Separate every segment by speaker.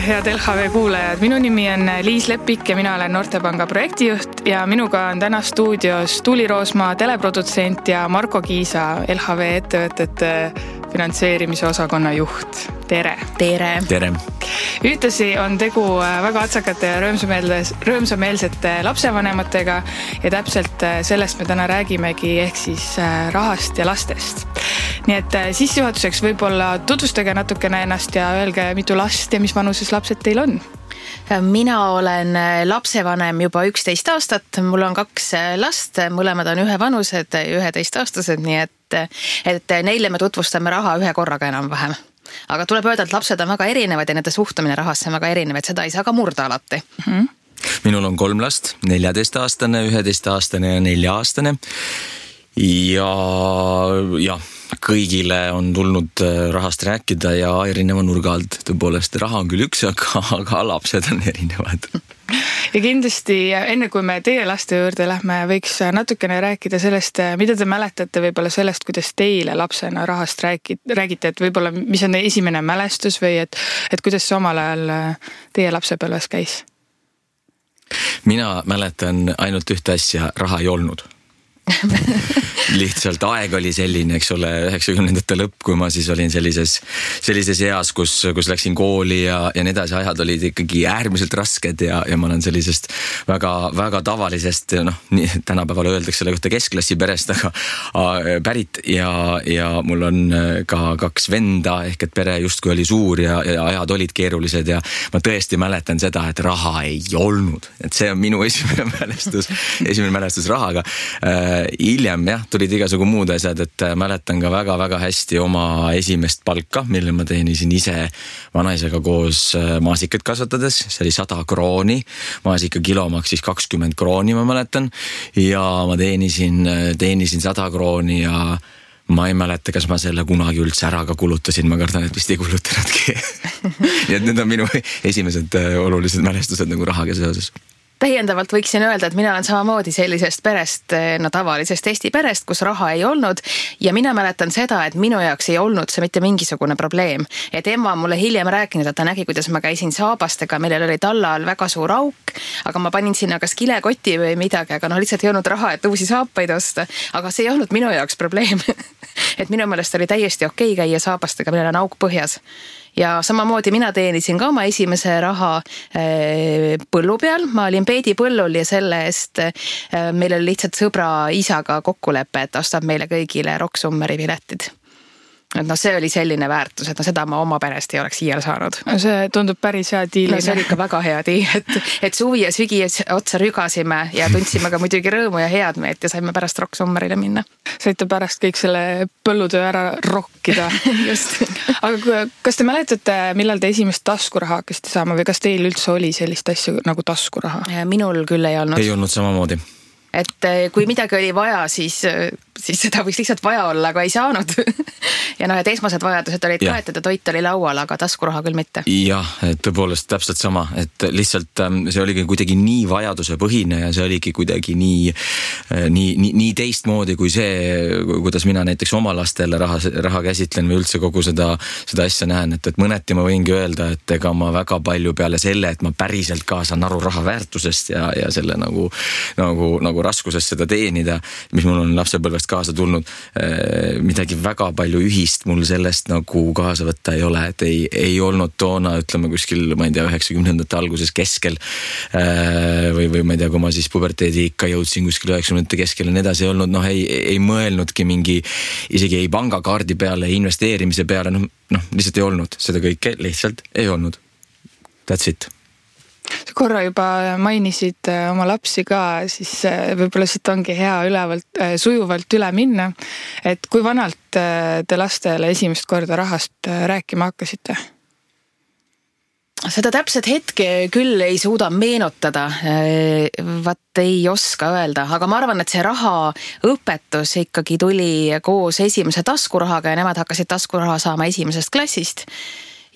Speaker 1: head LHV kuulajad. Minu nimi on Liis Lepik ja mina olen Noortepanga projektijuht ja minuga on täna stuudios Tuuli Roosmaa, teleprodutsent ja Marko Kiisa, LHV ettevõtete finantseerimise osakonna juht. Tere!
Speaker 2: Tere!
Speaker 3: Tere!
Speaker 1: Ühtlasi on tegu väga atsakate ja rõõmsameelsete lapsevanematega ja täpselt sellest me täna räägimegi, ehk siis rahast ja lastest. Nii et sissejuhatuseks võib-olla tutvustage natukene ennast ja öelge, mitu last ja mis vanuses lapsed teil on?
Speaker 2: Mina olen lapsevanem juba 11 aastat, mul on 2 last, mõlemad on ühevanused, 11-aastased, nii et neile me tutvustame raha ühe korraga enam-vähem. Aga tuleb öelda, et lapsed on väga erinevad ja nende suhtumine rahasse on väga erinevad, seda ei saa ka murda alati.
Speaker 3: Minul on 3 last, 14-aastane, 11-aastane ja 4-aastane. Ja kõigile on tulnud rahast rääkida ja erineva nurga alt. Tõepoolest, raha on küll üks, aga lapsed on erinevad.
Speaker 1: Ja kindlasti enne kui me teie laste juurde lähme, võiks natukene rääkida sellest, mida te mäletate võib-olla sellest, kuidas teile lapsena rahast räägite, et võib-olla mis on esimene mälestus või et kuidas see omal ajal teie lapsepõlves käis?
Speaker 3: Mina mäletan ainult ühte asja, raha ei olnud. Lihtsalt aeg oli selline, eks ole, 90-ndate lõpp, kui ma siis olin sellises eas, kus läksin kooli ja need ajad olid ikkagi äärmiselt rasked ja ma olen sellisest väga, väga tavalisest, tänapäeval öeldakse selle kohta keskklassi perest, aga pärit ja mul on ka 2 venda, ehk et pere justkui oli suur ja ajad olid keerulised ja ma tõesti mäletan seda, et raha ei olnud. Et see on minu esimene mälestus rahaga. Hiljem tulid igasugu muud asjad, et mäletan ka väga-väga hästi oma esimest palka, mille ma teenisin ise vanaisaga koos maasikat kasvatades. See oli 100 krooni, maasika kilo maksis 20 krooni, ma mäletan. Ja ma teenisin 100 krooni ja ma ei mäleta, kas ma selle kunagi üldse ära ka kulutasin. Ma kardan, et vist ei kulutanudki. Nii et need on minu esimesed olulised mälestused nagu rahaga seoses.
Speaker 2: Täiendavalt võiksin öelda, et mina olen samamoodi sellisest perest, tavalisest Eesti perest, kus raha ei olnud ja mina mäletan seda, et minu jaoks ei olnud see mitte mingisugune probleem. Et ema mulle hiljem rääkinud, et ta nägi, kuidas ma käisin saabastega, millel oli talla all väga suur auk, aga ma panin sinna kas kilekoti või midagi, aga lihtsalt ei olnud raha, et uusi saapaid osta, aga see ei olnud minu jaoks probleem. Et minu meelest oli täiesti okei käia saabastega, millel on auk põhjas. Ja samamoodi mina teenisin ka oma esimese raha põllu peal. Ma olin peedipõllul ja selle eest meil oli lihtsalt sõbra isaga kokkulepe, et ostab meile kõigile Rock Summeri piletid. Et see oli selline väärtus, et seda ma oma perest ei oleks iial saanud.
Speaker 1: See tundub päris hea diil.
Speaker 2: See oli ikka väga hea diil, et suvi ja sügi otsa rügasime ja tundsime ka muidugi rõõmu ja head meelt ja saime pärast Rock Summerile minna.
Speaker 1: Saite pärast kõik selle põllutöö ära rokkida.
Speaker 2: Just.
Speaker 1: Aga kas te mäletate, millal te esimest taskuraha hakkasite saama või kas teil üldse oli sellist asja nagu taskuraha?
Speaker 2: Minul küll ei olnud.
Speaker 3: Ei olnud samamoodi.
Speaker 2: Et kui midagi oli vaja, siis seda võiks lihtsalt vaja olla, aga ei saanud. Ja et esmased vajadused olid kaetud ja toit oli laual, aga taskuraha küll mitte.
Speaker 3: Jah, et tõepoolest täpselt sama, et lihtsalt see oligi kuidagi nii vajaduse põhine ja see oligi kuidagi nii teistmoodi kui see, kuidas mina näiteks oma lastele raha käsitlen või üldse kogu seda asja näen, et mõneti ma võingi öelda, et ega ma väga palju peale selle, et ma päriselt ka saan aru raha väärtusest ja selle nagu raskusest seda teenida, mis mul on lapsepõlvest kaasa tulnud, midagi väga palju ühist mul sellest nagu kaasa võtta ei ole, et ei olnud toona, ütleme kuskil, ma ei tea, 90-ndate alguses keskel või ma ei tea, kui ma siis puberteedi ikka jõudsin kuskil 90-ndate keskel ja nii edasi ei olnud, ei mõelnudki isegi ei pangakaardi peale, investeerimise peale, lihtsalt ei olnud, seda kõike lihtsalt ei olnud. That's it.
Speaker 1: Korra juba mainisid oma lapsi ka, siis võib-olla siit ongi hea sujuvalt üle minna. Et kui vanalt te lastele esimest korda rahast rääkima hakkasite?
Speaker 2: Seda täpset hetke küll ei suuda meenutada, ei oska öelda, aga ma arvan, et see rahaõpetus ikkagi tuli koos esimese taskurahaga ja nemad hakkasid taskuraha saama esimesest klassist.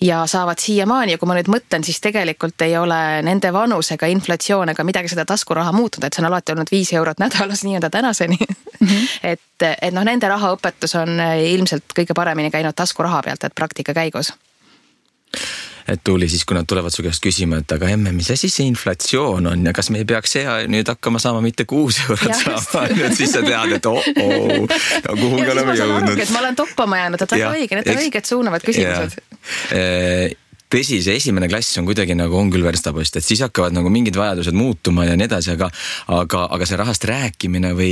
Speaker 2: Ja saavad siiamaani ja kui ma nüüd mõtlen, siis tegelikult ei ole nende vanusega inflatsioon ega midagi seda taskuraha muutunud, et see on alati olnud 5 eurot nädalas nii-öelda tänaseni. Et nende rahaõpetus on ilmselt kõige paremini käinud taskuraha pealt, et praktika käigus.
Speaker 3: et tuli siis, kui nad tulevad su käest küsima, et aga emme, mis asi see inflatsioon on ja kas me ei peaks nüüd hakkama saama mitte 6 eurot saama, et siis sa tead, et kuhugi oleme jõudnud.
Speaker 2: Ma olen toppama jäänud, et väga õige, need on õiged suunavad küsimused.
Speaker 3: Tõsi, see esimene klass on kuidagi nagu on küll verstapost, et siis hakkavad nagu mingid vajadused muutuma ja nii edasi, aga see rahast rääkimine või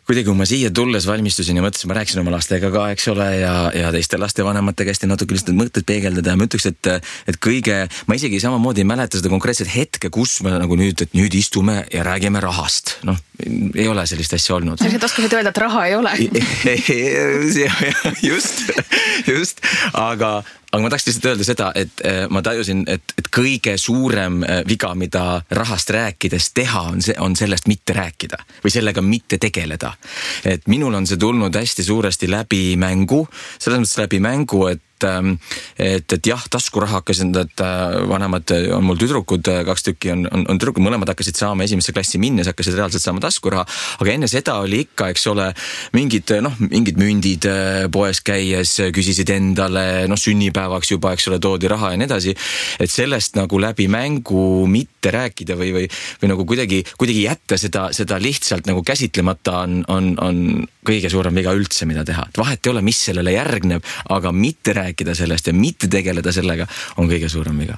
Speaker 3: kuidagi, kui ma siia tulles valmistusin ja mõtlesin, ma rääkisin oma lastega ka, eks ole, ja teiste lastevanemate käest ja natuke lihtsalt mõtted peegeldada ja ma ütleks, et kõige, ma isegi samamoodi ei mäleta seda konkreetset hetke, kus me nagu nüüd istume ja räägime rahast. Ei ole sellist asja olnud.
Speaker 2: Sa oskasid öelda, et raha ei ole.
Speaker 3: Just, aga ma tahaks lihtsalt öelda seda, et ma tajusin, et kõige suurem viga, mida rahast rääkides teha, on sellest mitte rääkida või sellega mitte tegeleda. Et minul on see tulnud hästi suuresti läbi mängu, selles mõttes läbi mängu, et jah, taskuraha hakkasin, et vanemad on mul tüdrukud, 2 tükki on tüdrukud, mõlemad hakkasid saama esimesse klassi minnes, hakkasid reaalselt saama taskuraha, aga enne seda oli ikka, eks ole, mingid mündid poes käies küsisid endale, sünnipäevaks juba, eks ole, toodi raha ja nii edasi, et sellest nagu läbi mängu mitte rääkida või nagu kuidagi jätta seda lihtsalt nagu käsitlemata on kõige suurem viga üldse, mida teha. Et vahet ei ole, mis sellele järgneb, aga mitte rääkida sellest ja mitte tegeleda sellega on kõige suurem viga.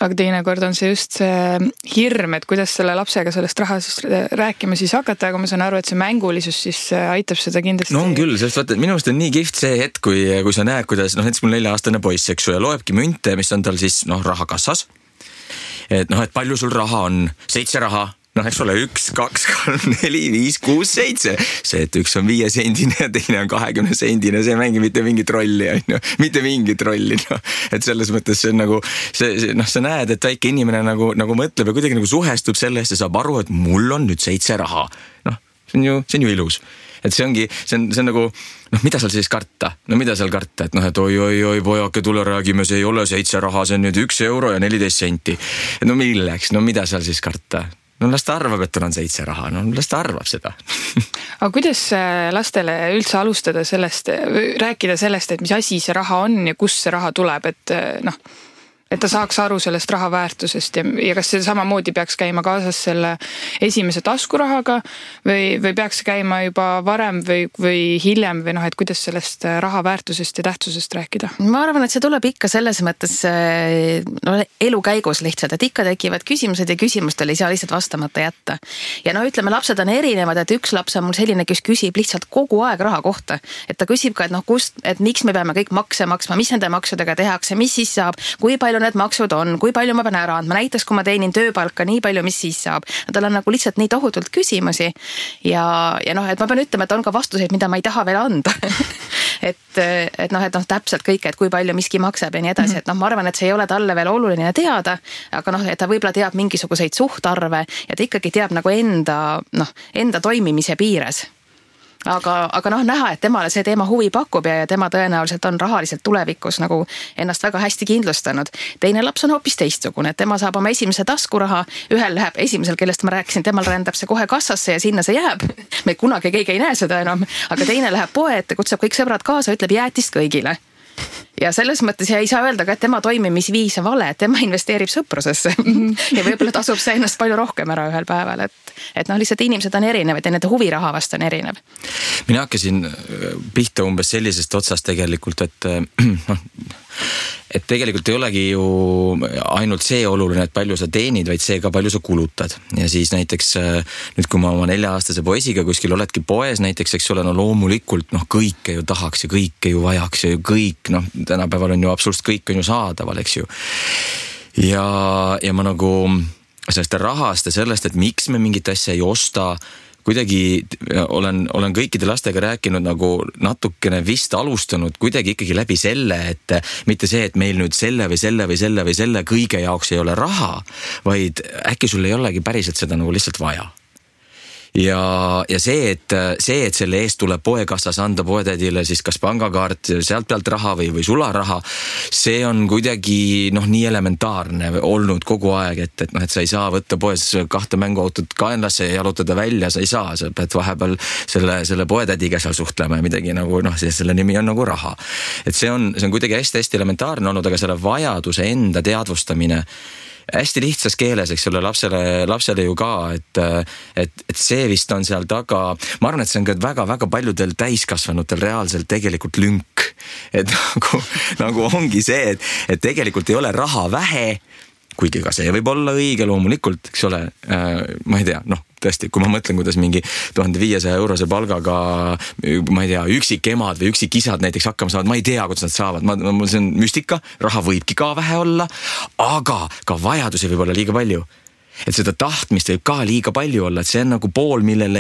Speaker 1: Aga teinekord on see just see hirm, et kuidas selle lapsega sellest raha siis rääkima siis hakata, aga ma saan aru, et see mängulisus siis aitab seda kindlasti.
Speaker 3: No on küll, sest vaata, et minu arust on nii kihvt see hetk, kui sa näed, kuidas, näiteks mul 4-aastane poiss, eks ju, ja loebki münte, mis on tal siis, rahakassas. Et palju sul raha on? 7 raha. Eks ole, 1, 2, 3, 4, 5, 6, 7. See, et üks on 5 sendine ja teine on 20 sendine, see mängi mitte mingit rolli, mitte mingit rolli. Et selles mõttes see on nagu, sa näed, et väike inimene nagu mõtleb ja kuidagi nagu suhestub sellest ja saab aru, et mul on nüüd 7 raha. See on ju ilus. Et see on nagu, mida seal siis karta? Mida seal karta? Et oi, pojake, tule räägime, see ei ole 7 raha, see on nüüd 1 euro ja 14 senti. Et milleks? Mida seal siis karta? Las ta arvab, et tal on 7 raha. Las ta arvab seda.
Speaker 1: Aga kuidas lastele üldse alustada sellest, rääkida sellest, et mis asi see raha on ja kust see raha tuleb, et ta saaks aru sellest raha väärtusest ja kas see samamoodi peaks käima kaasas selle esimese taskurahaga või peaks käima juba varem või hiljem või et kuidas sellest raha väärtusest ja tähtsusest rääkida?
Speaker 2: Ma arvan, et see tuleb ikka selles mõttes elu käigus lihtsalt, et ikka tekivad küsimused ja küsimustele ei saa lihtsalt vastamata jätta. Ja ütleme, lapsed on erinevad, et üks laps on mul selline, kes küsib lihtsalt kogu aeg raha kohta. Et ta küsib ka, et miks me peame kõik makse maksma, mis nende maksudega tehakse, mis siis saab, kui palju need maksud on, kui palju ma pean ära andma, näiteks kui ma teenin tööpalka nii palju, mis siis saab. Tal on nagu lihtsalt nii tohutult küsimusi ja et ma pean ütlema, et on ka vastuseid, mida ma ei taha veel anda. et täpselt kõik, et kui palju miski maksab ja nii edasi, et ma arvan, et see ei ole talle veel oluline teada, aga et ta võib-olla teab mingisuguseid suhtarve ja ta ikkagi teab nagu enda toimimise piires. Aga näha, et temale see teema huvi pakub ja tema tõenäoliselt on rahaliselt tulevikus nagu ennast väga hästi kindlustanud. Teine laps on hoopis teistsugune, et tema saab oma esimese taskuraha, ühel läheb esimesel, kellest ma rääkisin, temal rändab see kohe kassasse ja sinna see jääb. Me kunagi keegi ei näe seda enam, aga teine läheb poe ette, kutsub kõik sõbrad kaasa, ütleb jäätist kõigile. Ja selles mõttes ei saa öelda ka, et tema toimimisviis on vale, et tema investeerib sõprusesse ja võib-olla tasub see ennast palju rohkem ära ühel päeval, et lihtsalt inimesed on erinevad ja nende huviraha vast on erinev.
Speaker 3: Mina hakkasin pihta umbes sellisest otsast tegelikult, et tegelikult ei olegi ju ainult see oluline, et palju sa teenid, vaid see ka palju sa kulutad. Ja siis näiteks nüüd, kui ma oma 4-aastase poisiga kuskil oledki poes näiteks, eks ole, loomulikult kõike ju tahaks ja kõike ju vajaks ja kõik, tänapäeval on ju absoluutselt kõik on ju saadaval, eks ju. Ja ma nagu sellest rahast ja sellest, et miks me mingit asja ei osta, kuidagi olen kõikide lastega rääkinud nagu natukene vist alustanud kuidagi ikkagi läbi selle, et mitte see, et meil nüüd selle või selle või selle või selle kõige jaoks ei ole raha, vaid äkki sul ei olegi päriselt seda nagu lihtsalt vaja. ja see, et selle eest tuleb poekassas anda poetädile siis kas pangakaart, sealt pealt raha või sularaha, see on kuidagi nii elementaarne olnud kogu aeg, et sa ei saa võtta poes 2 mänguautot kaenlasse ja jalutada välja, sa ei saa, sa pead vahepeal selle poetädiga seal suhtlema ja midagi selle nimi on raha. Et see on kuidagi hästi elementaarne olnud, aga selle vajaduse enda teadvustamine hästi lihtsas keeles, eks ole, lapsele ju ka, et see vist on seal taga, ma arvan, et see on ka väga-väga paljudel täiskasvanutel reaalselt tegelikult lünk, et nagu ongi see, et tegelikult ei ole raha vähe, kuigi ka see võib olla õige loomulikult, eks ole, ma ei tea, tõesti, kui ma mõtlen, kuidas mingi 1500 eurose palgaga, ma ei tea, üksikemad või üksikisad näiteks hakkama saavad, ma ei tea, kuidas nad saavad, see on müstika, raha võibki ka vähe olla, aga ka vajadusi võib olla liiga palju. Et seda tahtmist võib ka liiga palju olla, et see on pool, millele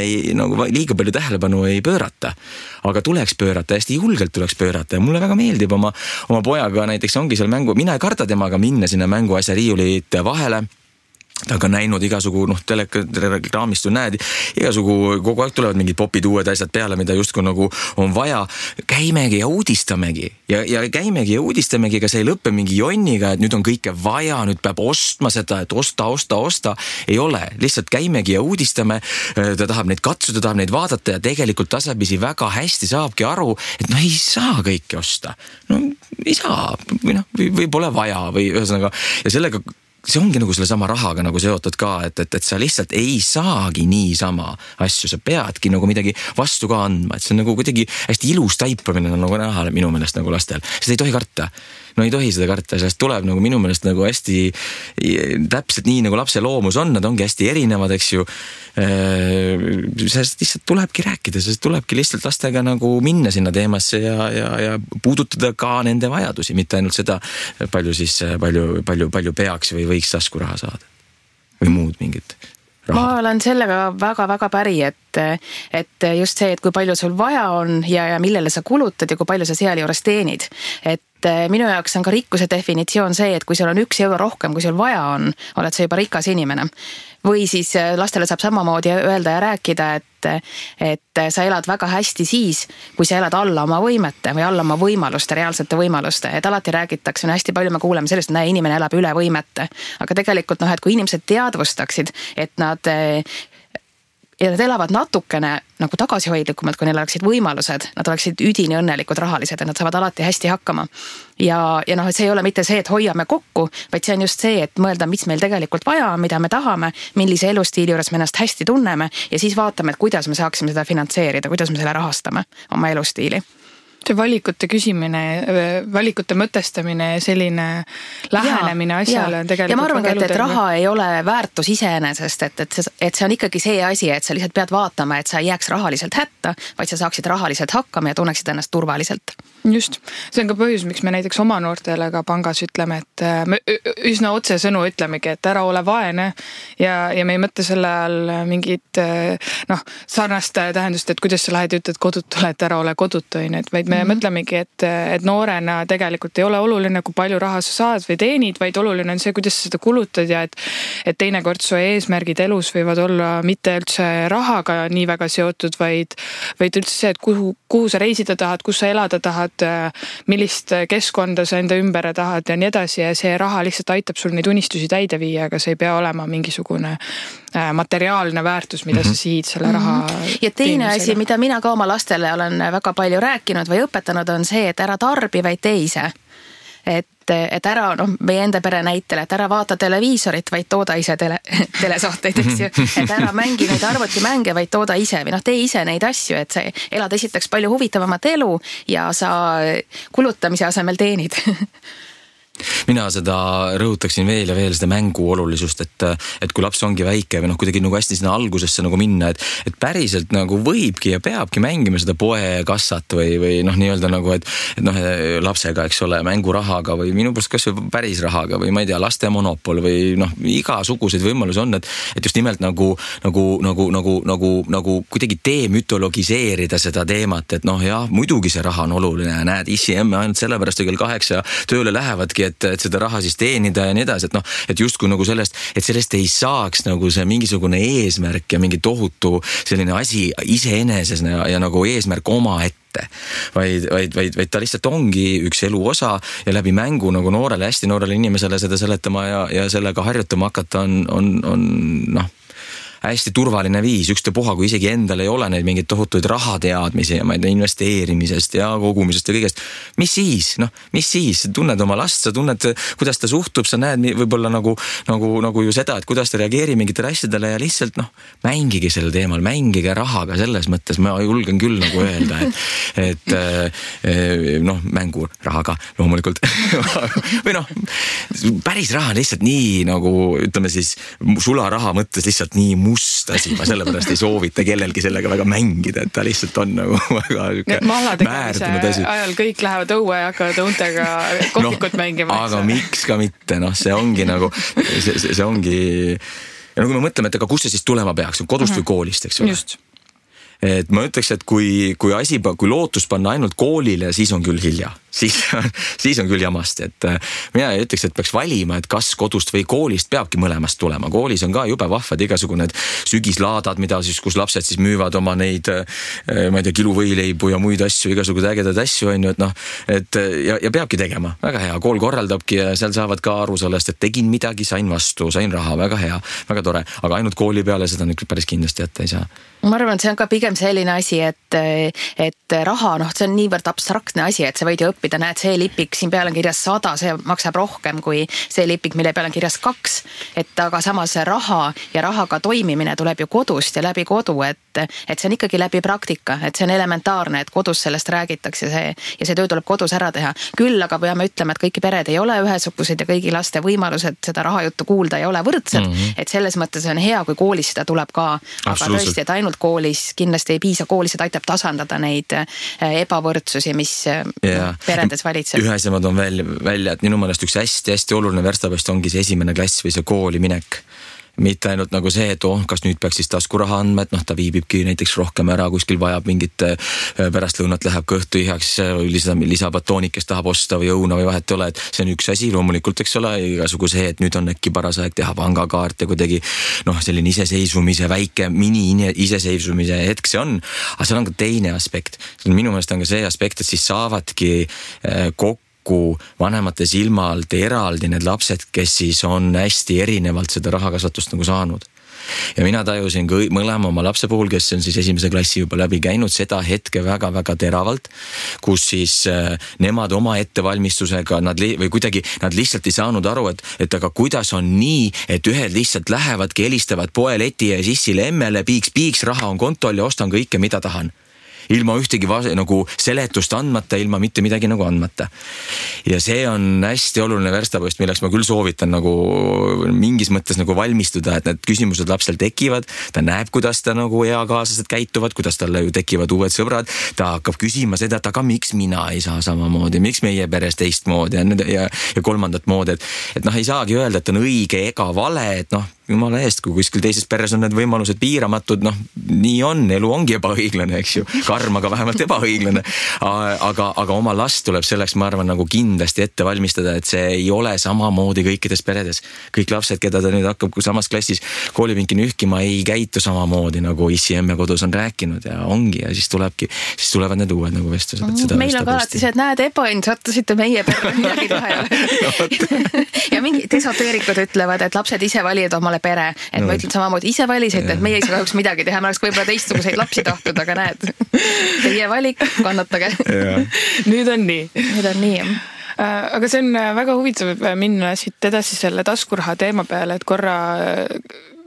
Speaker 3: liiga palju tähelepanu ei pöörata. Aga tuleks pöörata, hästi julgelt tuleks pöörata ja mulle väga meeldib oma pojaga näiteks ongi seal mängu, mina ei karda temaga minna sinna mänguasja riiulite vahele. Ta on ka näinud igasugu, telegraamist ju näed, igasugu kogu aeg tulevad mingid popid uued asjad peale, mida justkui on vaja. Käimegi ja uudistamegi. Ja käimegi ja uudistamegi, ega see ei lõppe mingi jonniga, et nüüd on kõike vaja, nüüd peab ostma seda, et osta. Ei ole, lihtsalt käimegi ja uudistame. Ta tahab neid katsuda, tahab neid vaadata ja tegelikult tasapisi väga hästi saabki aru, et ei saa kõike osta. Ei saa, või pole vaja või ühesõnaga. Ja sellega see ongi selle sama rahaga seotud ka, et sa lihtsalt ei saagi niisama asju, sa peadki midagi vastu ka andma, et see on kuidagi hästi ilus taipamine näha minu meelest lastel, seda ei tohi karta. Ei tohi seda karta, sellest tuleb minu meelest hästi täpselt nii lapse loomus on, nad ongi hästi erinevad, eks ju. Sellest lihtsalt tulebki rääkida, sellest tulebki lihtsalt lastega minna sinna teemasse ja puudutada ka nende vajadusi, mitte ainult seda, palju peaks või võiks taskuraha saada või muud mingit raha.
Speaker 2: Ma olen sellega väga-väga päri, et just see, et kui palju sul vaja on ja millele sa kulutad ja kui palju sa seal juures teenid. Et minu jaoks on ka rikkuse definitsioon see, et kui sul on 1 euro rohkem, kui sul vaja on, oled sa juba rikas inimene. Või siis lastele saab samamoodi öelda ja rääkida, et sa elad väga hästi siis, kui sa elad alla oma võimete või alla oma võimaluste, reaalsete võimaluste. Et alati räägitakse, hästi palju me kuuleme sellest, et inimene elab üle võimete. Aga tegelikult, et kui inimesed teadvustaksid, et nad elavad natukene tagasihoidlikumalt, kui neil oleksid võimalused, nad oleksid üdini õnnelikud rahalised, et nad saavad alati hästi hakkama. Ja et see ei ole mitte see, et hoiame kokku, vaid see on just see, et mõelda, mis meil tegelikult vaja on, mida me tahame, millise elustiili juures me ennast hästi tunneme ja siis vaatame, et kuidas me saaksime seda finantseerida, kuidas me selle rahastame oma elustiili.
Speaker 1: See valikute küsimine, valikute mõtestamine ja selline lähenemine asjale on tegelikult
Speaker 2: ja ma arvan, et raha ei ole väärtus iseenesest, et see on ikkagi see asi, et sa lihtsalt pead vaatama, et sa ei jääks rahaliselt hätta, vaid sa saaksid rahaliselt hakkama ja tunneksid ennast turvaliselt.
Speaker 1: Just, see on ka põhjus, miks me näiteks oma noortele ka pangas ütleme, et me üsna otse sõnu ütlemegi, et ära ole vaene ja me ei mõtle selle all mingit sarnast tähendust, et kuidas sa lähed ja ütled kodutule, et ära ole kodutu, vaid me mõtlemegi, et noorena tegelikult ei ole oluline, kui palju raha sa saad või teenid, vaid oluline on see, kuidas sa seda kulutad ja et teinekord su eesmärgid elus võivad olla mitte üldse rahaga nii väga seotud, vaid üldse see, et kuhu sa reisida tahad, kus sa elada tahad, millist keskkonda sa enda ümber tahad ja nii edasi ja see raha lihtsalt aitab sul neid unistusi täide viia, aga see ei pea olema mingisugune materiaalne väärtus, mida sa siid selle raha
Speaker 2: ja teine asi, mida mina ka oma lastele olen väga palju rääkinud või õpetanud, on see, et ära tarbi, vaid tee ise. Et ära, meie enda pere näitel, et ära vaata televiisorit, vaid tooda ise telesaateid, eks ju. Et ära mängi neid arvutimänge, vaid tooda ise või tee ise neid asju, et sa elad esiteks palju huvitavamat elu ja sa kulutamise asemel teenid.
Speaker 3: Mina seda rõhutaksin veel ja veel seda mängu olulisust, et kui laps ongi väike või kuidagi hästi sinna algusesse minna, et päriselt võibki ja peabki mängima seda poekassat või nii-öelda et lapsega, eks ole, mängurahaga või minu pärast kas või päris rahaga või ma ei tea, laste monopol või igasuguseid võimalusi on, et just nimelt kuidagi demütologiseerida seda teemat, et jah, muidugi see raha on oluline, näed, issi emme ainult sellepärast kell 8 tööle lähevadki, et seda raha siis teenida ja nii edasi, et noh, et justkui nagu sellest ei saaks nagu see mingisugune eesmärk ja mingi tohutu selline asi iseeneses ja nagu eesmärk omaette, vaid ta lihtsalt ongi üks elu osa ja läbi mängu nagu hästi noorele inimesele seda seletama ja sellega harjutama hakata on hästi turvaline viis, ükstapuha, kui isegi endal ei ole neid mingeid tohutuid rahateadmisi ja ma ei tea, investeerimisest ja kogumisest ja kõigest. Mis siis? Tunned oma last, sa tunned, kuidas ta suhtub, sa näed võib-olla nagu ju seda, et kuidas ta reageerib mingitele asjadele ja lihtsalt mängige sel teemal, mängige rahaga selles mõttes, ma julgen küll nagu öelda, et mängu rahaga loomulikult või päris raha lihtsalt nii nagu ütleme siis sularaha mõttes lihtsalt nii must asi, ma sellepärast ei soovita kellelgi sellega väga mängida, et ta lihtsalt on nagu väga määrdunud asi.
Speaker 1: Ajal kõik lähevad õue ja hakkavad õuntega kohvikut mängima.
Speaker 3: Aga miks ka mitte, see ongi nagu, see ongi, ja kui me mõtleme, et aga kus see siis tulema peaks, kodust või koolist, eks ole?
Speaker 1: Just.
Speaker 3: Et ma ütleks, et kui lootus panna ainult koolile, siis on küll hilja. Siis on küll jamast, et mina ütleks, et peaks valima, et kas kodust või koolist peabki mõlemast tulema. Koolis on ka jube vahvad igasugune sügislaadad, mida siis, kus lapsed siis müüvad oma neid, ma ei tea, kiluvõileibu ja muid asju, igasugused ägedad asju on ju, et ja peabki tegema. Väga hea, kool korraldabki ja seal saavad ka aru sellest, et tegin midagi, sain vastu, sain raha, väga hea, väga tore, aga ainult kooli peale seda nüüd päris kindlasti jätta ei saa.
Speaker 2: Ma arvan, et see on ka pigem selline asi, et raha, see on niivõrd abstraktne asi, et sa võid ju õppida, näed, see lipik, siin peal on kirjas 100, see maksab rohkem kui see lipik, mille peal on kirjas 2, et aga samas raha ja rahaga toimimine tuleb ju kodust ja läbi kodu, et see on ikkagi läbi praktika, et see on elementaarne, et kodus sellest räägitakse ja see töö tuleb kodus ära teha. Küll aga peame ütlema, et kõiki pered ei ole ühesugused ja kõigi laste võimalused seda rahajuttu kuulda ei ole võrdsed, et selles mõttes on hea, kui koolis seda tuleb ka, aga tõesti, et ainult koolis kindlasti ei piisa, koolis seda aitab tasandada neid ebavõrdsusi, mis peredes valitseb.
Speaker 3: Ühe asja ma toon välja, et minu meelest üks hästi oluline verstapost ongi see esimene klass või see kooli minek. Mitte ainult nagu see, et kas nüüd peaks siis taskuraha andma, et ta viibibki näiteks rohkem ära, kuskil vajab mingit pärastlõunat läheb kõhtu ihaks, lisabatoonik, kes tahab osta või õuna või vahet ole, et see on üks asi loomulikult, eks ole, igasugu see, et nüüd on äkki paras aeg teha pangakaart ja kuidagi selline iseseisvumise, väike mini-iseseisvumise hetk see on, aga seal on ka teine aspekt. Minu meelest on ka see aspekt, et siis saavadki kokku vanemate silma alt eraldi need lapsed, kes siis on hästi erinevalt seda rahakasvatust nagu saanud. Ja mina tajusin mõlema oma lapse puhul, kes on siis esimese klassi juba läbi käinud, seda hetke väga-väga teravalt, kus siis nemad oma ettevalmistusega, nad lihtsalt ei saanud aru, et aga kuidas on nii, et ühed lihtsalt lähevadki, helistavad poeleti ja sissile emmele, piiks, raha on kontol ja ostan kõike, mida tahan. Ilma ühtegi nagu seletust andmata, ilma mitte midagi nagu andmata. Ja see on hästi oluline verstapost, milleks ma küll soovitan nagu mingis mõttes nagu valmistuda, et need küsimused lapsel tekivad, ta näeb, kuidas ta nagu eakaaslased käituvad, kuidas talle ju tekivad uued sõbrad, ta hakkab küsima seda, et aga miks mina ei saa samamoodi, miks meie peres teistmoodi ja kolmandat moodi, et ei saagi öelda, et on õige ega vale, et jumala eest, kui kuskil teises peres on need võimalused piiramatud, nii on, elu ongi ebaõiglane, eks ju, karm, aga vähemalt ebaõiglane, aga oma last tuleb selleks, ma arvan, nagu kindlasti ette valmistada, et see ei ole samamoodi kõikides peredes. Kõik lapsed, keda ta nüüd hakkab samas klassis koolipinki nühkima, ei käitu samamoodi, nagu issi emme kodus on rääkinud ja ongi ja siis tulevad need uued nagu vestlused.
Speaker 2: Meil on ka alati see, et näed, sattusite meie perre, midagi teha ei ole. Ja mingid esoteerikud ütlevad, et lapsed ise valivad omale pere, et ma ütlen samamoodi, ise valisite, et meie ei saa kahjuks midagi teha, ma oleks võib-olla teistsuguseid lapsi tahtnud, aga näed, teie valik, kannatage.
Speaker 1: Nüüd on nii. Aga see on väga huvitav minna siit edasi selle taskuraha teema peale, et korra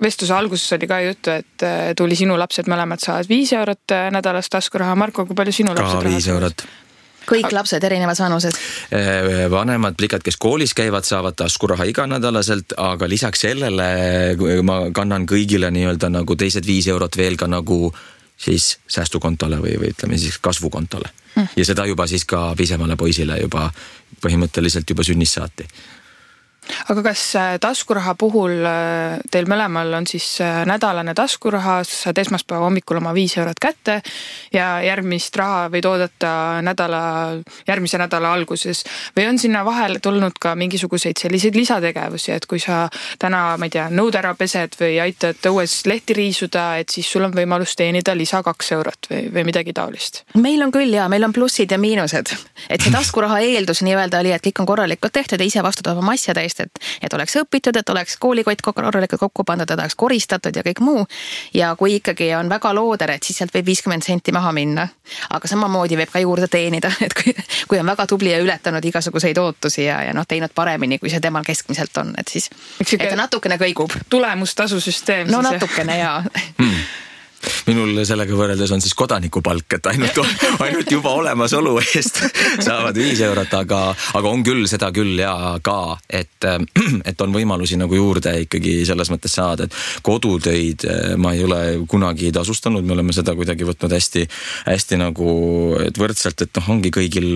Speaker 1: vestluse alguses oli ka juttu, et tuli sinu lapsed mõlemad saavad 5 eurot nädalas taskuraha. Marko, kui palju sinu lapsed
Speaker 3: raha 5 eurot?
Speaker 2: Kõik lapsed erinevas vanused?
Speaker 3: Vanemad plikad, kes koolis käivad, saavad taskuraha iganädalaselt, aga lisaks sellele ma kannan kõigile nii-öelda nagu teised 5 eurot veel ka nagu siis säästukontole või ütleme siis kasvukontole. Ja seda juba siis ka pisemale poisile juba põhimõtteliselt juba sünnist saati.
Speaker 1: Aga kas taskuraha puhul teil mõlemal on siis nädalane taskuraha, saad esmaspäeva hommikul oma 5 eurot kätte ja järgmist raha võid oodata järgmise nädala alguses või on sinna vahele tulnud ka mingisuguseid selliseid lisategevusi, et kui sa täna, ma ei tea, nõud ära pesed või aitad õues lehti riisuda, et siis sul on võimalus teenida lisa 2 eurot või midagi taolist?
Speaker 2: Meil on küll meil on plussid ja miinused, et see taskuraha eeldus nii-öelda oli, et kõik on korralikult tehtud ja ise vastutab oma asjade eest, et oleks õpitud, et oleks koolikott korralikult kokku pandud, et oleks koristatud ja kõik muu. Ja kui ikkagi on väga looder, et siis sealt võib 50 senti maha minna. Aga samamoodi võib ka juurde teenida, et kui on väga tubli ja ületanud igasuguseid ootusi ja teinud paremini, kui see temal keskmiselt on, et siis et ta natukene kõigub.
Speaker 1: Tulemustasusüsteem.
Speaker 2: No natukene jaa.
Speaker 3: Minul sellega võrreldes on siis kodanikupalk, et ainult juba olemasolu eest saavad 5 eurot, aga on küll seda küll ja ka, et on võimalusi nagu juurde ikkagi selles mõttes saada, et kodutöid ma ei ole kunagi tasustanud, me oleme seda kuidagi võtnud hästi nagu et võrdselt, et ongi kõigil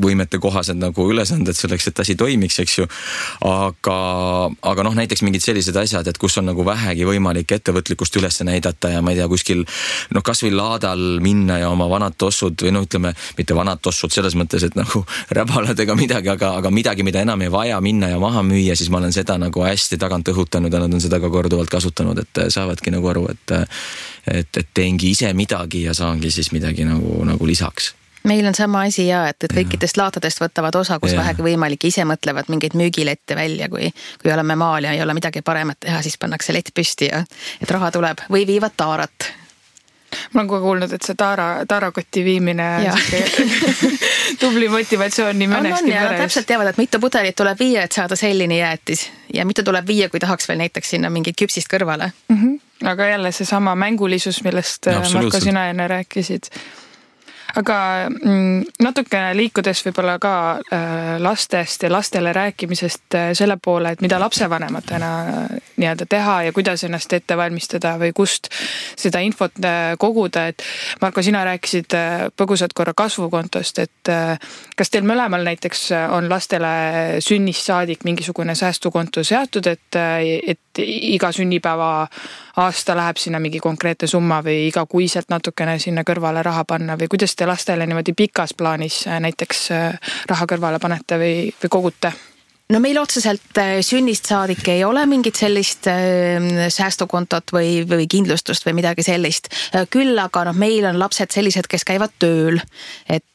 Speaker 3: võimete kohased nagu ülesanded selleks, et asi toimiks, eks ju. Aga näiteks mingid sellised asjad, et kus on nagu vähegi võimalik ettevõtlikkust üles näidata ja ma ei tea, kuskil kas või laadal minna ja oma vanad tossud või ütleme, mitte vanad tossud selles mõttes, et nagu räbalad ega midagi, aga midagi, mida enam ei vaja minna ja maha müüa, siis ma olen seda nagu hästi tagant õhutanud ja nad on seda ka korduvalt kasutanud, et saavadki nagu aru, et teengi ise midagi ja saangi siis midagi nagu lisaks.
Speaker 2: Meil on sama asi et kõikidest laatadest võtavad osa, kus vähegi võimalik, ise mõtlevad mingeid müügilette välja, kui oleme maal ja ei ole midagi paremat teha, siis pannakse lett püsti ja et raha tuleb või viivad taarat.
Speaker 1: Ma olen kogu kuulnud, et see taarakotti viimine tubli motivatsioon nii mõneski peres.
Speaker 2: Täpselt teavad, et mitu pudelit tuleb viia, et saada sellini jäätis ja mitu tuleb viia, kui tahaks veel näiteks sinna mingit küpsist kõrvale.
Speaker 1: Aga jälle see sama mängulisus, millest Marko sina enne rääkisid. Aga natukene liikudes võib-olla ka lastest ja lastele rääkimisest selle poole, et mida lapsevanematena nii-öelda teha ja kuidas ennast ette valmistada või kust seda infot koguda, et Marko, sina rääkisid põgusalt korra kasvukontost, et kas teil mõlemal näiteks on lastele sünnist saadik mingisugune säästukonto seatud, et iga sünnipäeva aasta läheb sinna mingi konkreetne summa või iga kuiselt natukene sinna kõrvale raha panna või kuidas te lastele niimoodi pikas plaanis näiteks raha kõrvale panete või kogute?
Speaker 2: No meil otseselt sünnist saadik ei ole mingit sellist säästukontot või kindlustust või midagi sellist. Küll aga meil on lapsed sellised, kes käivad tööl, et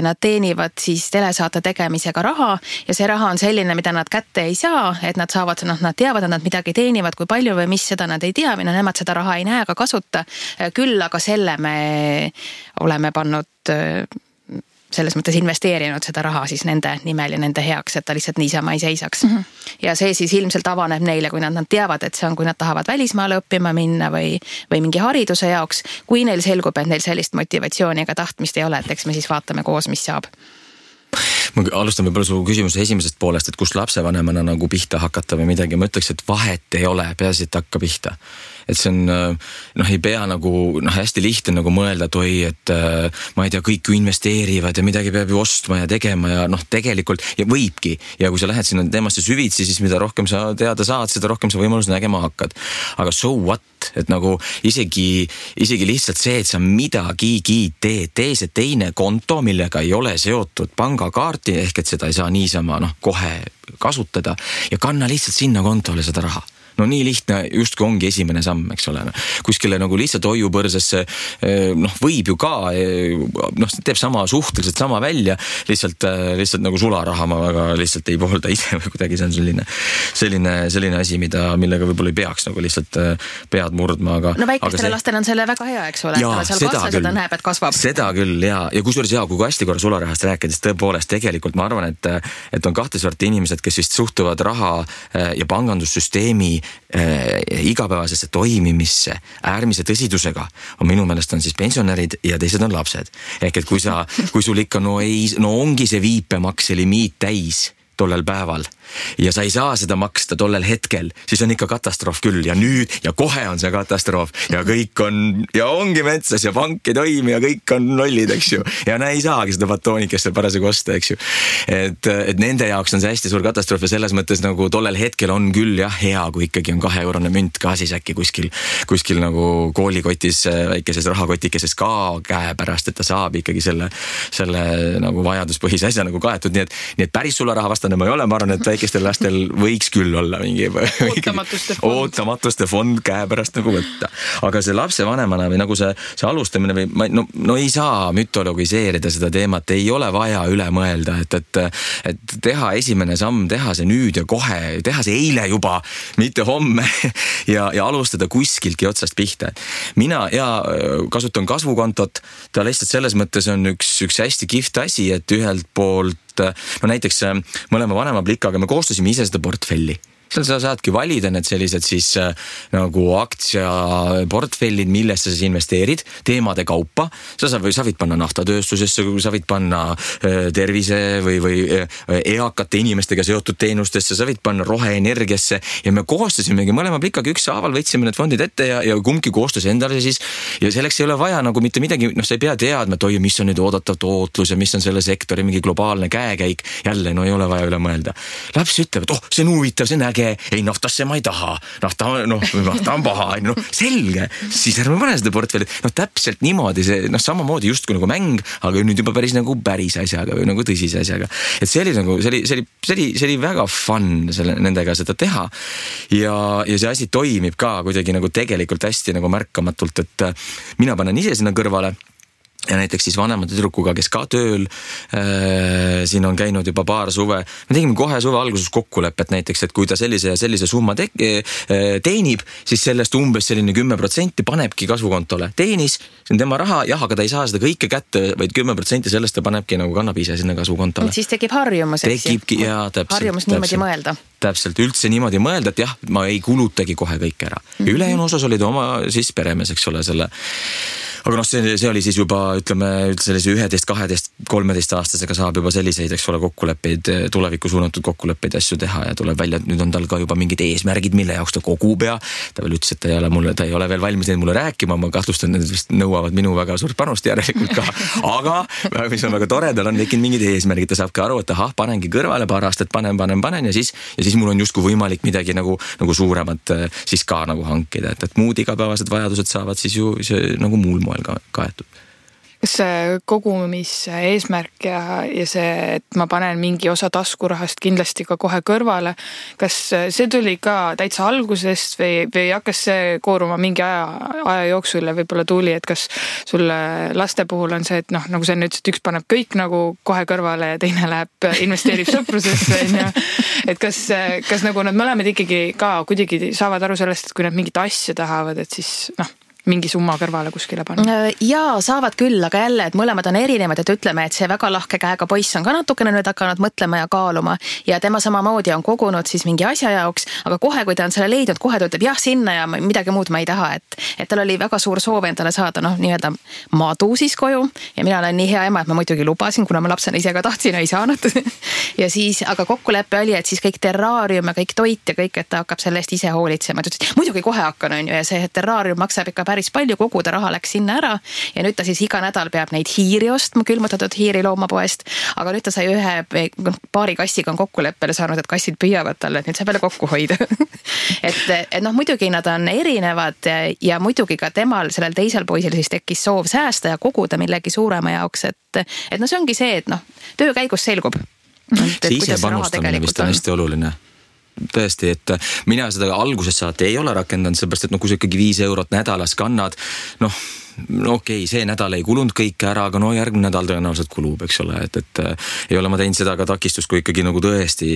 Speaker 2: nad teenivad siis telesaate tegemisega raha ja see raha on selline, mida nad kätte ei saa, et nad saavad, nad teavad, et nad midagi teenivad, kui palju või mis, seda nad ei tea või nemad seda raha ei näe ega kasuta. Küll aga selle me oleme pannud selles mõttes investeerinud seda raha siis nende nimel ja nende heaks, et ta lihtsalt niisama ei seisaks. Ja see siis ilmselt avaneb neile, kui nad teavad, et see on, kui nad tahavad välismaale õppima minna või mingi hariduse jaoks. Kui neil selgub, et neil sellist motivatsiooni ega tahtmist ei ole, et eks me siis vaatame koos, mis saab.
Speaker 3: Ma alustan võib-olla su küsimuse esimesest poolest, et kus lapsevanemana nagu pihta hakata või midagi. Ma ütleks, et vahet ei ole, peaasi, et hakka pihta. Et see on, ei pea nagu, hästi lihtne nagu mõelda, et oi, et ma ei tea, kõik ju investeerivad ja midagi peab ju ostma ja tegema ja tegelikult ja võibki. Ja kui sa lähed sinna teemasse süvitsi, siis mida rohkem sa teada saad, seda rohkem sa võimalus nägema hakkad. Aga so what? Et nagu isegi lihtsalt see, et sa midagigi tee see teine konto, millega ei ole seotud pangakaarti, ehk et seda ei saa niisama kohe kasutada ja kanna lihtsalt sinna kontole seda raha. No nii lihtne justkui ongi esimene samm, eks ole. Kuskile nagu lihtsalt hoiupõrsesse võib ju ka, teeb suhteliselt sama välja, lihtsalt nagu sularaha ma väga lihtsalt ei poolda ise või kuidagi see on selline asi, millega võib-olla ei peaks nagu lihtsalt pead murdma.
Speaker 2: No väikestele lastele on selle väga hea, eks ole, seal kasvas, seda näeb, et kasvab.
Speaker 3: Seda küll ja kusjuures kui hästi korra sularahast rääkides, tõepoolest tegelikult ma arvan, et on kahte sorti inimesed, kes vist suhtuvad raha ja pangandussüsteemi igapäevasesse toimimisse äärmise tõsidusega on minu meelest on siis pensionärid ja teised on lapsed. Ehk et kui sul ikka ongi see viipemakseliimiit täis tollel päeval ja sa ei saa seda maksta tollel hetkel, siis on ikka katastroof küll ja nüüd ja kohe on see katastroof ja kõik on ja ongi metsas ja pank ei toimi ja kõik on lollid, eks ju. Ja ei saagi seda batoonikest seal parasjagu osta, eks ju. Et nende jaoks on see hästi suur katastroof ja selles mõttes nagu tollel hetkel on küll jah hea, kui ikkagi on 2-eurone münt ka siis äkki kuskil nagu koolikotis väikeses rahakotikeses ka käepärast, et ta saab ikkagi selle nagu vajaduspõhise asja nagu kaetud, nii et päris sularahavastane ma ei ole, ma arvan, et väikestel lastel võiks küll olla mingi ootamatuste fond käepärast nagu võtta. Aga see lapsevanemana või nagu see alustamine või no ei saa mütologiseerida seda teemat, ei ole vaja üle mõelda, et teha esimene samm, teha see nüüd ja kohe, teha see eile juba, mitte homme ja alustada kuskiltki otsast pihta. Mina kasutan kasvukontot, ta lihtsalt selles mõttes on üks hästi kihvt asi, et ühelt poolt, no näiteks mõlema vanema plikaga me koostasime ise seda portfelli. Seal sa saadki valida need sellised siis nagu aktsiaportfellid, millesse sa investeerid teemade kaupa. Sa võid panna naftatööstusesse, sa võid panna tervise või eakate inimestega seotud teenustesse, sa võid panna roheenergiasse ja me koostasimegi mõlema plikaga ükshaaval, võtsime need fondid ette ja kumbki koostas endale siis ja selleks ei ole vaja nagu mitte midagi, sa ei pea teadma, et mis on nüüd oodatav tootlus ja mis on selle sektori mingi globaalne käekäik. Jälle, ei ole vaja üle mõelda. Laps ütleb, et see on huvitav, see on äge. Ei, naftasse ma ei taha. Nafta on paha. Selge. Siis ärme pane seda portfelli. Täpselt niimoodi see, samamoodi just kui nagu mäng, aga nüüd juba päris nagu päris asjaga või nagu tõsise asjaga. Et see oli väga fun nendega seda teha. Ja see asi toimib ka kuidagi nagu tegelikult hästi nagu märkamatult, et mina panen ise sinna kõrvale. Ja näiteks siis vanema tüdrukuga, kes ka tööl siin on käinud juba paar suve. Me tegime kohe suve alguses kokkulepet näiteks, et kui ta sellise summa teenib, siis sellest umbes selline 10% panebki kasvukontole. Teenis, see on tema raha, jah, aga ta ei saa seda kõike kätte, vaid 10% sellest ta panebki nagu kannab ise sinna kasvukontole.
Speaker 2: Et siis tekib harjumus, eks
Speaker 3: ju?
Speaker 2: Harjumus niimoodi mõelda.
Speaker 3: Täpselt, üldse niimoodi mõelda, et jah, ma ei kulutagi kohe kõik ära. Ülejäänu osas olid oma siis peremees, eks ole, selle. Aga see oli siis juba, ütleme, sellise 11, 12, 13 aastasega saab juba selliseid, eks ole, kokkuleppeid, tulevikku suunatud kokkuleppeid asju teha ja tuleb välja, et nüüd on tal ka juba mingid eesmärgid, mille jaoks ta kogub ja ta veel ütles, et ta ei ole veel valmis neid mulle rääkima, ma kahtlustan, et need vist nõuavad minu väga suurt panust järelikult ka. Aga mis on väga tore, tal on tekkinud mingid eesmärgid, ta saab ka aru, et panengi kõrvale paar aastat, panen ja siis mul on justkui võimalik midagi nagu suuremat siis ka nagu hankida, et muud igapäevased vajadused saavad siis ju nagu muul moel kaetud.
Speaker 1: Kas see kogumis eesmärk ja see, et ma panen mingi osa taskurahast kindlasti ka kohe kõrvale, kas see tuli ka täitsa algusest või hakkas see kooruma mingi aja jooksul ja võib-olla tuli, et kas sulle laste puhul on see, et nagu sa nüüd, et üks paneb kõik nagu kohe kõrvale ja teine investeerib sõprusesse, et kas nagu nad mõlemad ikkagi ka kuidagi saavad aru sellest, et kui nad mingit asja tahavad, et siis mingi summa kõrvale kuskile panna?
Speaker 2: Jaa, saavad küll, aga jälle, et mõlemad on erinevad, et ütleme, et see väga lahke käega poiss on ka natukene nüüd hakanud mõtlema ja kaaluma ja tema samamoodi on kogunud siis mingi asja jaoks, aga kohe, kui ta on selle leidnud, kohe ta ütleb jah sinna ja midagi muud ma ei taha, et tal oli väga suur soov endale saada nii-öelda madu siis koju ja mina olen nii hea ema, et ma muidugi lubasin, kuna ma lapsena ise ka tahtsin, ei saanud ja siis, aga kokkulepe oli, et siis kõik terraarium ja kõik toit ja kõik, et ta hakkab selle eest ise hoolitsema, et ütles, muidugi kohe hakkan, on ju, ja see terraarium maksab ikka päris palju, kogu ta raha läks sinna ära ja nüüd ta siis iga nädal peab neid hiiri ostma, külmutatud hiiri loomapoest, aga nüüd ta sai paari kassiga on kokkuleppele saanud, et kassid püüavad talle, et nüüd saab jälle kokku hoida et muidugi nad on erinevad ja muidugi ka temal, sellel teisel poisil siis tekkis soov säästa ja koguda millegi suurema jaoks, et see ongi see, et töö käigus selgub.
Speaker 3: See ise panustamine vist on hästi oluline. Tõesti, et mina seda algusest saati ei ole rakendanud, seepärast, et kui sa ikkagi 5 eurot nädalas kannad, okei, see nädal ei kulunud kõike ära, aga järgmine nädal tõenäoliselt kulub, eks ole, et ei ole ma teinud seda ka takistust, kui ikkagi nagu tõesti,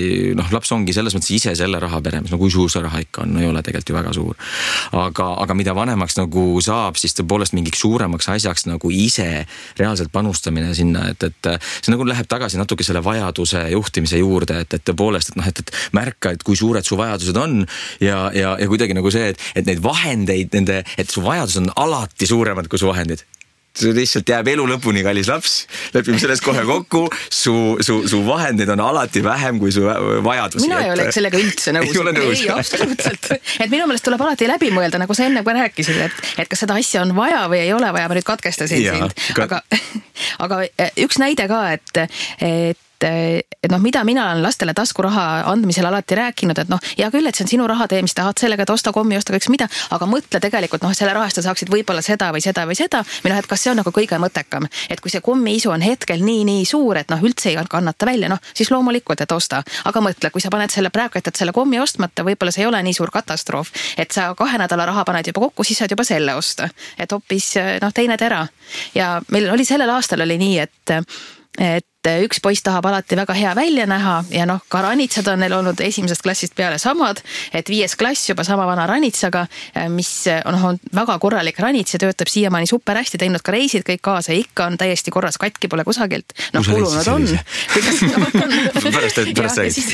Speaker 3: laps ongi selles mõttes ise selle raha peremes, kui suur see raha ikka on, ei ole tegelikult ju väga suur. Aga mida vanemaks nagu saab, siis tõepoolest mingiks suuremaks asjaks nagu ise reaalselt panustamine sinna, et see nagu läheb tagasi natuke selle vajaduse juhtimise juurde, et tõepoolest, et märka, et kui suured su vajadused on ja kuidagi nagu see, et neid vahendeid, et su vajadus on alati suuremad kui su vahendid. lihtsalt jääb elu lõpuni, kallis laps, lepime selles kohe kokku, su vahendeid on alati vähem kui su vajadusi.
Speaker 2: Mina ei ole sellega üldse nõus. Ei, absoluutselt. Et minu meelest tuleb alati läbi mõelda, nagu sa enne kui rääkisid, et kas seda asja on vaja või ei ole vaja, ma nüüd katkestasin sind. Aga üks näide ka, et mida mina olen lastele taskuraha andmisel alati rääkinud, et hea küll, et see on sinu raha, tee, mis tahad sellega, et osta kommi, osta kõiks mida, aga mõtle tegelikult, selle rahast sa saaksid võib-olla seda või seda või seda, või et kas see on nagu kõige mõttekam, et kui see kommiisu on hetkel nii suur, et üldse ei kannata välja, siis loomulikult, et osta, aga mõtle, kui sa paned selle praegu, et selle kommi ostmata, võib-olla see ei ole nii suur katastroof, et sa 2 nädala raha paned juba kokku, siis saad juba selle osta, et hoopis teine tera. Ja meil oli sellel aastal oli nii, et üks poiss tahab alati väga hea välja näha ja ka ranitsad on neil olnud esimesest klassist peale samad, et 5. klass juba sama vana ranitsaga, mis on väga korralik ranits ja töötab siiamaani super hästi, teinud ka reisid kõik kaasa ja ikka on täiesti korras, katki pole kusagilt. Kulunud on.
Speaker 3: Pärast räägid.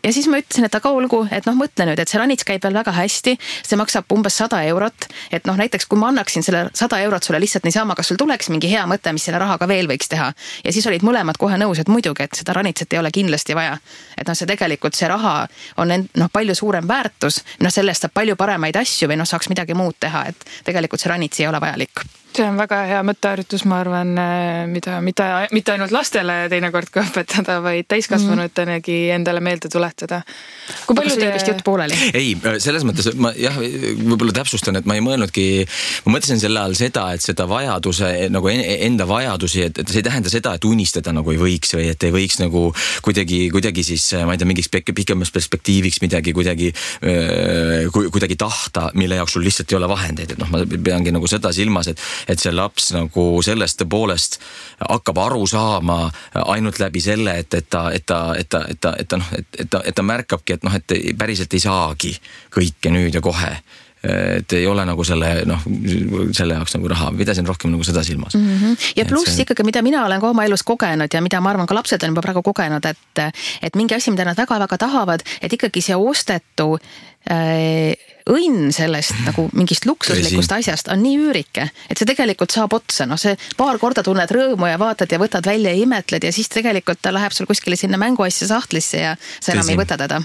Speaker 2: Ja siis ma ütlesin, et aga olgu, et mõtle nüüd, et see ranits käib veel väga hästi, see maksab umbes 100 €, et näiteks kui ma annaksin selle 100 € sulle lihtsalt niisama, kas sul tuleks mingi hea mõte, mis selle rahaga veel võiks teha. Ja siis olid mõlemad kohe nõus, et muidugi, et seda ranitset ei ole kindlasti vaja. Et see tegelikult, see raha on palju suurem väärtus, sellest saab palju paremaid asju või saaks midagi muud teha, et tegelikult see ranits ei ole vajalik.
Speaker 1: See on väga hea mõtteharjutus, ma arvan, mida mitte ainult lastele teinekord ka õpetada, vaid täiskasvanuteenegi endale meelde tuletada.
Speaker 2: Aga sul jäi vist jutt pooleli?
Speaker 3: Ei, selles mõttes, ma võib-olla täpsustan, et ma ei mõelnudki, ma mõtlesin selle all seda, et seda vajaduse, nagu enda vajadusi, et see ei tähenda seda, et unistada nagu ei võiks või et ei võiks nagu kuidagi siis, ma ei tea, mingiks pikemas perspektiiviks midagi kuidagi tahta, mille jaoks sul lihtsalt ei ole vahendeid, et ma peangi nagu seda silmas, et see laps nagu sellest poolest hakkab aru saama ainult läbi selle, et ta märkabki, et päriselt ei saagi kõike nüüd ja kohe. Et ei ole nagu selle jaoks nagu raha, pidasin rohkem nagu seda silmas.
Speaker 2: Ja pluss ikkagi, mida mina olen ka oma elus kogenud ja mida ma arvan ka lapsed on juba praegu kogenud, et mingi asi, mida nad väga-väga tahavad, et ikkagi see ostetu õnn sellest nagu mingist luksuslikust asjast on nii üürike, et see tegelikult saab otsa, see paar korda tunned rõõmu ja vaatad ja võtad välja ja imetled ja siis tegelikult ta läheb sul kuskile sinna mänguasja sahtlisse ja sa enam ei võta teda.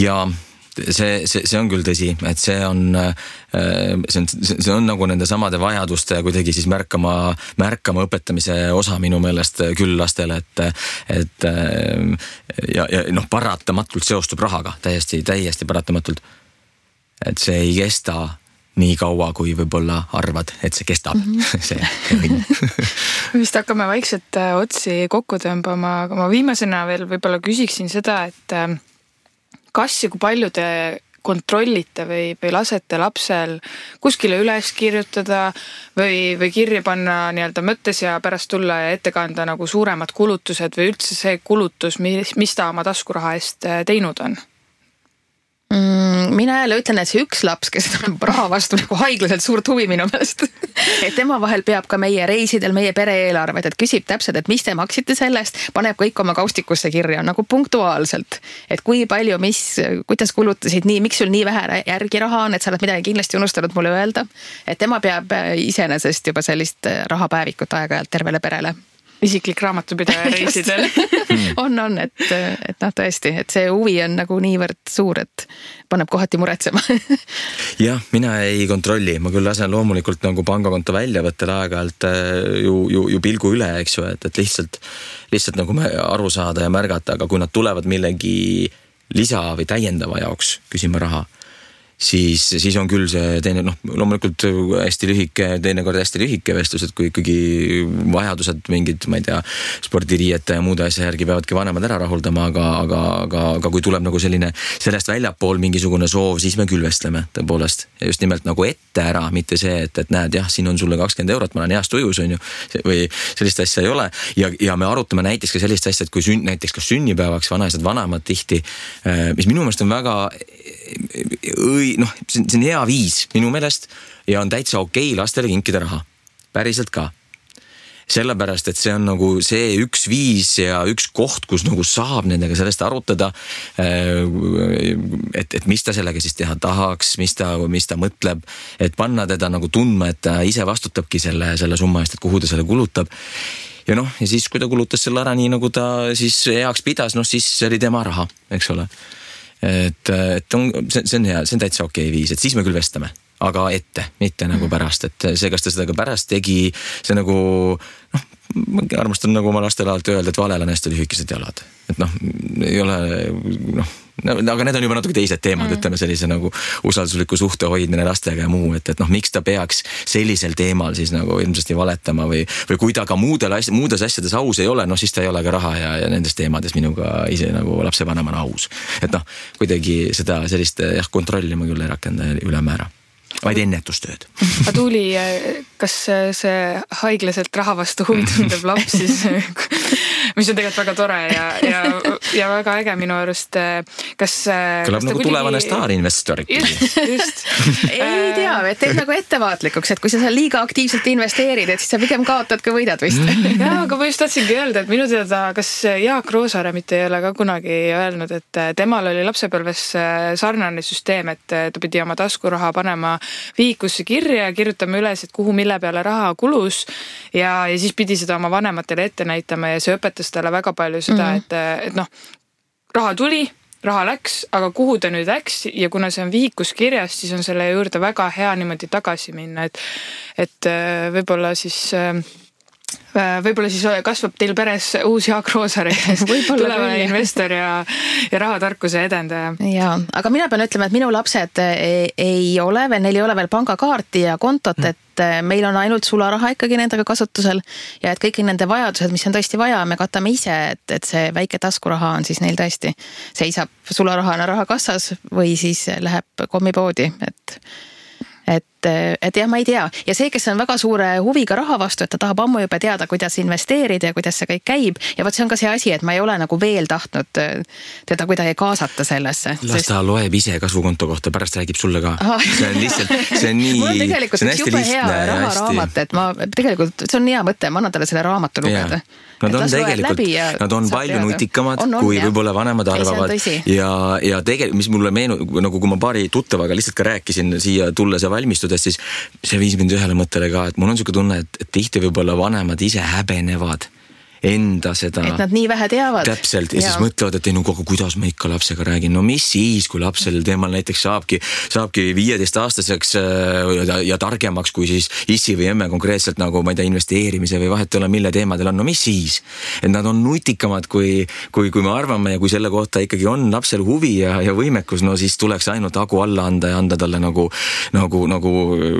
Speaker 3: Ja see on küll tõsi, et see on nagu nende samade vajaduste kuidagi siis märkama õpetamise osa minu meelest küll lastele, et paratamatult seostub rahaga, täiesti paratamatult. Et see ei kesta nii kaua, kui võib-olla arvad, et see kestab. See õnn.
Speaker 1: Vist hakkame vaikselt otsi kokku tõmbama, aga ma viimasena veel võib-olla küsiksin seda, et kas ja kui palju te kontrollite või lasete lapsel kuskile üles kirjutada või kirja panna nii-öelda mõttes ja pärast tulla ja ette kanda nagu suuremad kulutused või üldse see kulutus, mis ta oma taskuraha eest teinud on?
Speaker 2: Mina jälle ütlen, et see üks laps, kes on raha vastu nagu haiglaselt suurt huvi minu meelest, et tema vahel peab ka meie reisidel, meie pere-eelarved, et küsib täpselt, et mis te maksite sellest, paneb kõik oma kaustikusse kirja nagu punktuaalselt, et kui palju, kuidas kulutasid nii, miks sul nii vähe järgi raha on, et sa oled midagi kindlasti unustanud mulle öelda, et tema peab iseenesest juba sellist rahapäevikut aeg-ajalt tervele perele.
Speaker 1: Isiklik raamatupidaja reisidel.
Speaker 2: on, et tõesti, et see huvi on nagu niivõrd suur, et paneb kohati muretsema.
Speaker 3: Jah, mina ei kontrolli, ma küll lasen loomulikult nagu pangakonto väljavõttel aeg-ajalt ju pilgu üle, eks ju, et lihtsalt nagu aru saada ja märgata, aga kui nad tulevad millegi lisa või täiendava jaoks küsima raha, siis on küll see teine, loomulikult hästi lühike, teinekord hästi lühike vestlus, et kui ikkagi vajadused mingid, ma ei tea, spordiriiete ja muude asja järgi peavadki vanemad ära rahuldama, aga kui tuleb nagu selline sellest väljapool mingisugune soov, siis me küll vestleme tõepoolest. Ja just nimelt nagu ette ära, mitte see, et näed, jah, siin on sulle 20 €, ma olen heast ujus, on ju, või sellist asja ei ole. Ja me arutame näiteks ka sellist asja, et kui näiteks kas sünnipäevaks vanemad tihti, mis minu meelest on väga see on hea viis minu meelest ja on täitsa okei lastele kinkida raha. Päriselt ka. sellepärast, et see on nagu see üks viis ja üks koht, kus nagu saab nendega sellest arutada, et mis ta sellega siis teha tahaks, mis ta mõtleb, et panna teda nagu tundma, et ta ise vastutabki selle summa eest, et kuhu ta selle kulutab. Ja ja siis, kui ta kulutas selle ära nii, nagu ta siis heaks pidas, siis see oli tema raha, eks ole. Et see on hea, see on täitsa okei viis, et siis me küll vestame, aga ette, mitte nagu pärast, et see, kas ta seda ka pärast tegi, see nagu, ma armastan nagu oma lastele alati öelda, et valel on hästi lühikesed jalad. Et ei ole, aga need on juba natuke teised teemad, ütleme sellise nagu usaldusliku suhte hoidmine lastega ja muu, et miks ta peaks sellisel teemal siis nagu ilmsesti valetama või kui ta ka muudes asjades aus ei ole, siis ta ei ole ka raha ja nendes teemades minuga ise nagu lapsevanemana aus. Et kuidagi seda sellist kontrolli ma küll ei rakenda ülemäära. Vaid ennetustööd.
Speaker 1: Aga Tuuli, kas see haiglaselt raha vastu huvi tundev laps siis, mis on tegelikult väga tore ja väga äge minu arust, kas...
Speaker 3: Kõlab nagu tulevane staarinvestor.
Speaker 1: Just.
Speaker 2: Ei tea, et teed nagu ettevaatlikuks, et kui sa seal liiga aktiivselt investeerid, et siis sa pigem kaotad, kui võidad vist.
Speaker 1: Jaa, aga ma just tahtsingi öelda, et minu teada, kas Jaak Roosaare mitte ei ole ka kunagi öelnud, et temal oli lapsepõlves sarnane süsteem, et ta pidi oma taskuraha panema vihikusse kirja ja kirjutame üles, et kuhu mille peale raha kulus ja siis pidi seda oma vanematele ette näitama ja see õpetas talle väga palju seda, et raha tuli, raha läks, aga kuhu ta nüüd läks ja kuna see on vihikus kirjas, siis on selle juurde väga hea niimoodi tagasi minna, et võib-olla siis kasvab teil peres uus Jaak Roosaar, tulevane investor ja rahatarkuse edendaja.
Speaker 2: Jaa, aga mina pean ütlema, et minu lapsed ei ole veel, neil ei ole veel pangakaarti ja kontot, et meil on ainult sularaha ikkagi nendega kasutusel ja et kõik nende vajadused, mis on tõesti vaja, me katame ise, et see väike taskuraha on siis neil tõesti seisab sularahana rahakassas või siis läheb kommipoodi, et jah, ma ei tea. Ja see, kes on väga suure huviga raha vastu, et ta tahab ammu juba teada, kuidas investeerida ja kuidas see kõik käib. Ja võt see on ka see asi, et ma ei ole nagu veel tahtnud teda kuidagi kaasata sellesse.
Speaker 3: Las ta loeb ise kasvukonto kohta, pärast räägib sulle ka. See on lihtsalt, see on nii...
Speaker 2: Mul on tegelikult üks jube hea raharaamat, et ma tegelikult, see on hea mõte, ma annan talle selle raamatu lugeda.
Speaker 3: Nad on tegelikult, nad on palju nutikamad, kui võib-olla vanemad arvavad. Ja tegelikult, mis mulle nagu kui ma paari tuttavaga lihtsalt ka rääkisin siia tulles ja valmistudes, siis see viis mind ühele mõttele ka, et mul on selline tunne, et tihti võib-olla vanemad ise häbenevad enda seda...
Speaker 2: Et nad nii vähe teavad.
Speaker 3: Täpselt, ja siis mõtlevad, et kuidas ma ikka lapsega räägin. No mis siis, kui lapsel teemal näiteks saabki 15-aastaseks ja targemaks, kui siis issi või emme konkreetselt nagu, ma ei tea, investeerimise või vahet ei ole, mille teemadel on. No mis siis? Et nad on nutikamad, kui me arvame ja kui selle kohta ikkagi on lapsel huvi ja võimekus, no siis tuleks ainult hagu alla anda ja anda talle nagu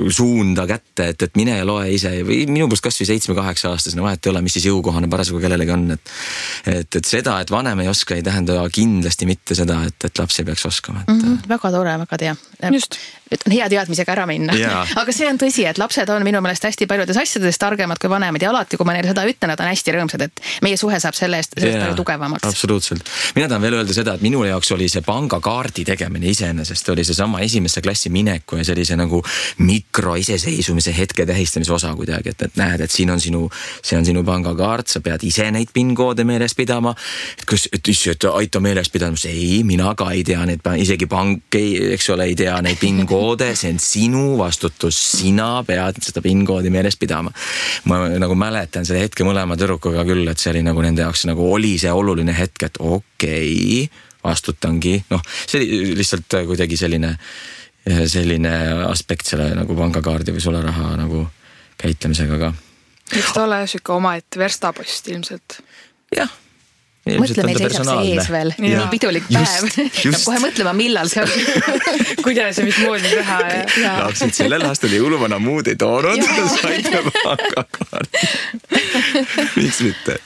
Speaker 3: suunda kätte, et mine ja loe ise. Või minu poolt kas või 7-8-aastasena vahet ei ole, mis siis jõukohane parasjagu kellelegi on, et seda, et vanem ei oska, ei tähenda kindlasti mitte seda, et laps ei peaks oskama.
Speaker 2: Väga tore, väga tea.
Speaker 1: Just.
Speaker 2: On hea teadmisega ära minna. Aga see on tõsi, et lapsed on minu meelest hästi paljudes asjades targemad kui vanemad ja alati, kui ma neile seda ütlen, nad on hästi rõõmsad, et meie suhe saab sellest palju tugevamaks.
Speaker 3: Absoluutselt. Mina tahan veel öelda seda, et minu jaoks oli see pangakaardi tegemine iseenesest, oli see sama esimesse klassi mineku ja sellise nagu mikroiseseisumise hetke tähistamise osa kuidagi, et näed, et see on sinu pangakaart, sa pead ise neid PIN-koode meeles pidama, et aita meeles pidama, ei, mina ka ei tea neid, isegi pank eks ole, ei tea neid PIN-koode, see on sinu vastutus, sina pead seda PIN-koodi meeles pidama. Ma nagu mäletan selle hetke mõlema tüdrukuga küll, et see oli nagu nende jaoks nagu oli see oluline hetk, et okei, vastutangi, see oli lihtsalt kuidagi selline aspekt selle nagu pangakaardi või sularaha nagu käitlemisega ka.
Speaker 1: Eks ta ole süke omaette verstapost ilmselt.
Speaker 3: Jah.
Speaker 2: Mõtle, meil seisab see ees veel. Nii pidulik päev. Peab kohe mõtlema, millal see on.
Speaker 1: Kuidas ja mis moodi teha.
Speaker 3: Lapsid sellel aastal jõuluvana muud ei toonud. Saite pangakaardi. Miks mitte?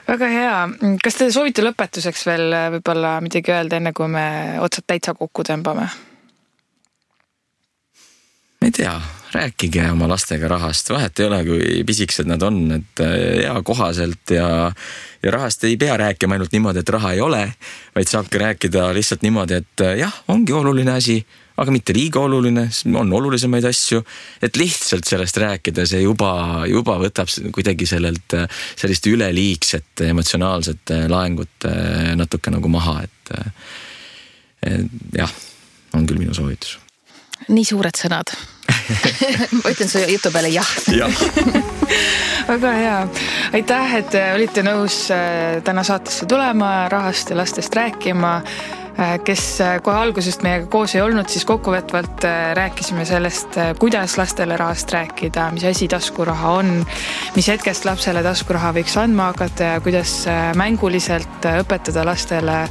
Speaker 1: Väga hea. Kas te soovite lõpetuseks veel võib-olla midagi öelda, enne kui me otsad täitsa kokku tõmbame?
Speaker 3: Ma ei tea, rääkige oma lastega rahast, vahet ei ole, kui pisiksed nad on, et hea kohaselt ja rahast ei pea rääkima ainult niimoodi, et raha ei ole, vaid saabki rääkida lihtsalt niimoodi, et jah, ongi oluline asi, aga mitte liiga oluline, on olulisemaid asju, et lihtsalt sellest rääkida, see juba võtab kuidagi sellist üleliigset emotsionaalset laengut natuke nagu maha, et jah, on küll minu soovitus.
Speaker 2: Nii suured sõnad. Ma ütlen su jutu peale jah.
Speaker 1: Väga hea. Aitäh, et olite nõus täna saatesse tulema, rahast ja lastest rääkima. Kes kohe algusest meiega koos ei olnud, siis kokkuvõtvalt rääkisime sellest, kuidas lastele rahast rääkida, mis asi taskuraha on, mis hetkest lapsele taskuraha võiks andma hakata ja kuidas mänguliselt õpetada lastele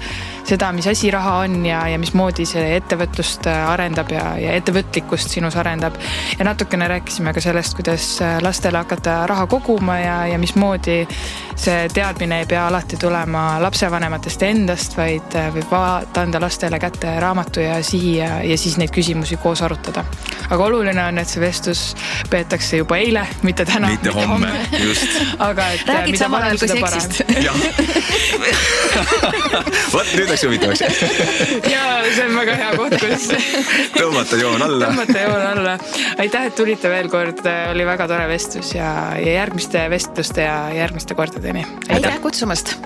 Speaker 1: seda, mis asi raha on ja mismoodi see ettevõtlust arendab ja ettevõtlikkust sinus arendab. Ja natukene rääkisime ka sellest, kuidas lastele hakata raha koguma ja mismoodi see teadmine ei pea alati tulema lapsevanematest endast, vaid võib anda lastele kätte raamatu ja sihi ja siis neid küsimusi koos arutada. Aga oluline on, et see vestlus peetakse juba eile, mitte täna,
Speaker 3: mitte homme. Just.
Speaker 1: Aga et
Speaker 2: räägid samal ajal kui seksist.
Speaker 3: Võt, nüüd läks huvitavaks.
Speaker 1: Ja see on väga hea koht, kus
Speaker 3: tõmmata joon alla.
Speaker 1: Aitäh, et tulite veel kord, oli väga tore vestlus ja järgmiste vestluste ja järgmiste kordadeni.
Speaker 2: Aitäh kutsumast!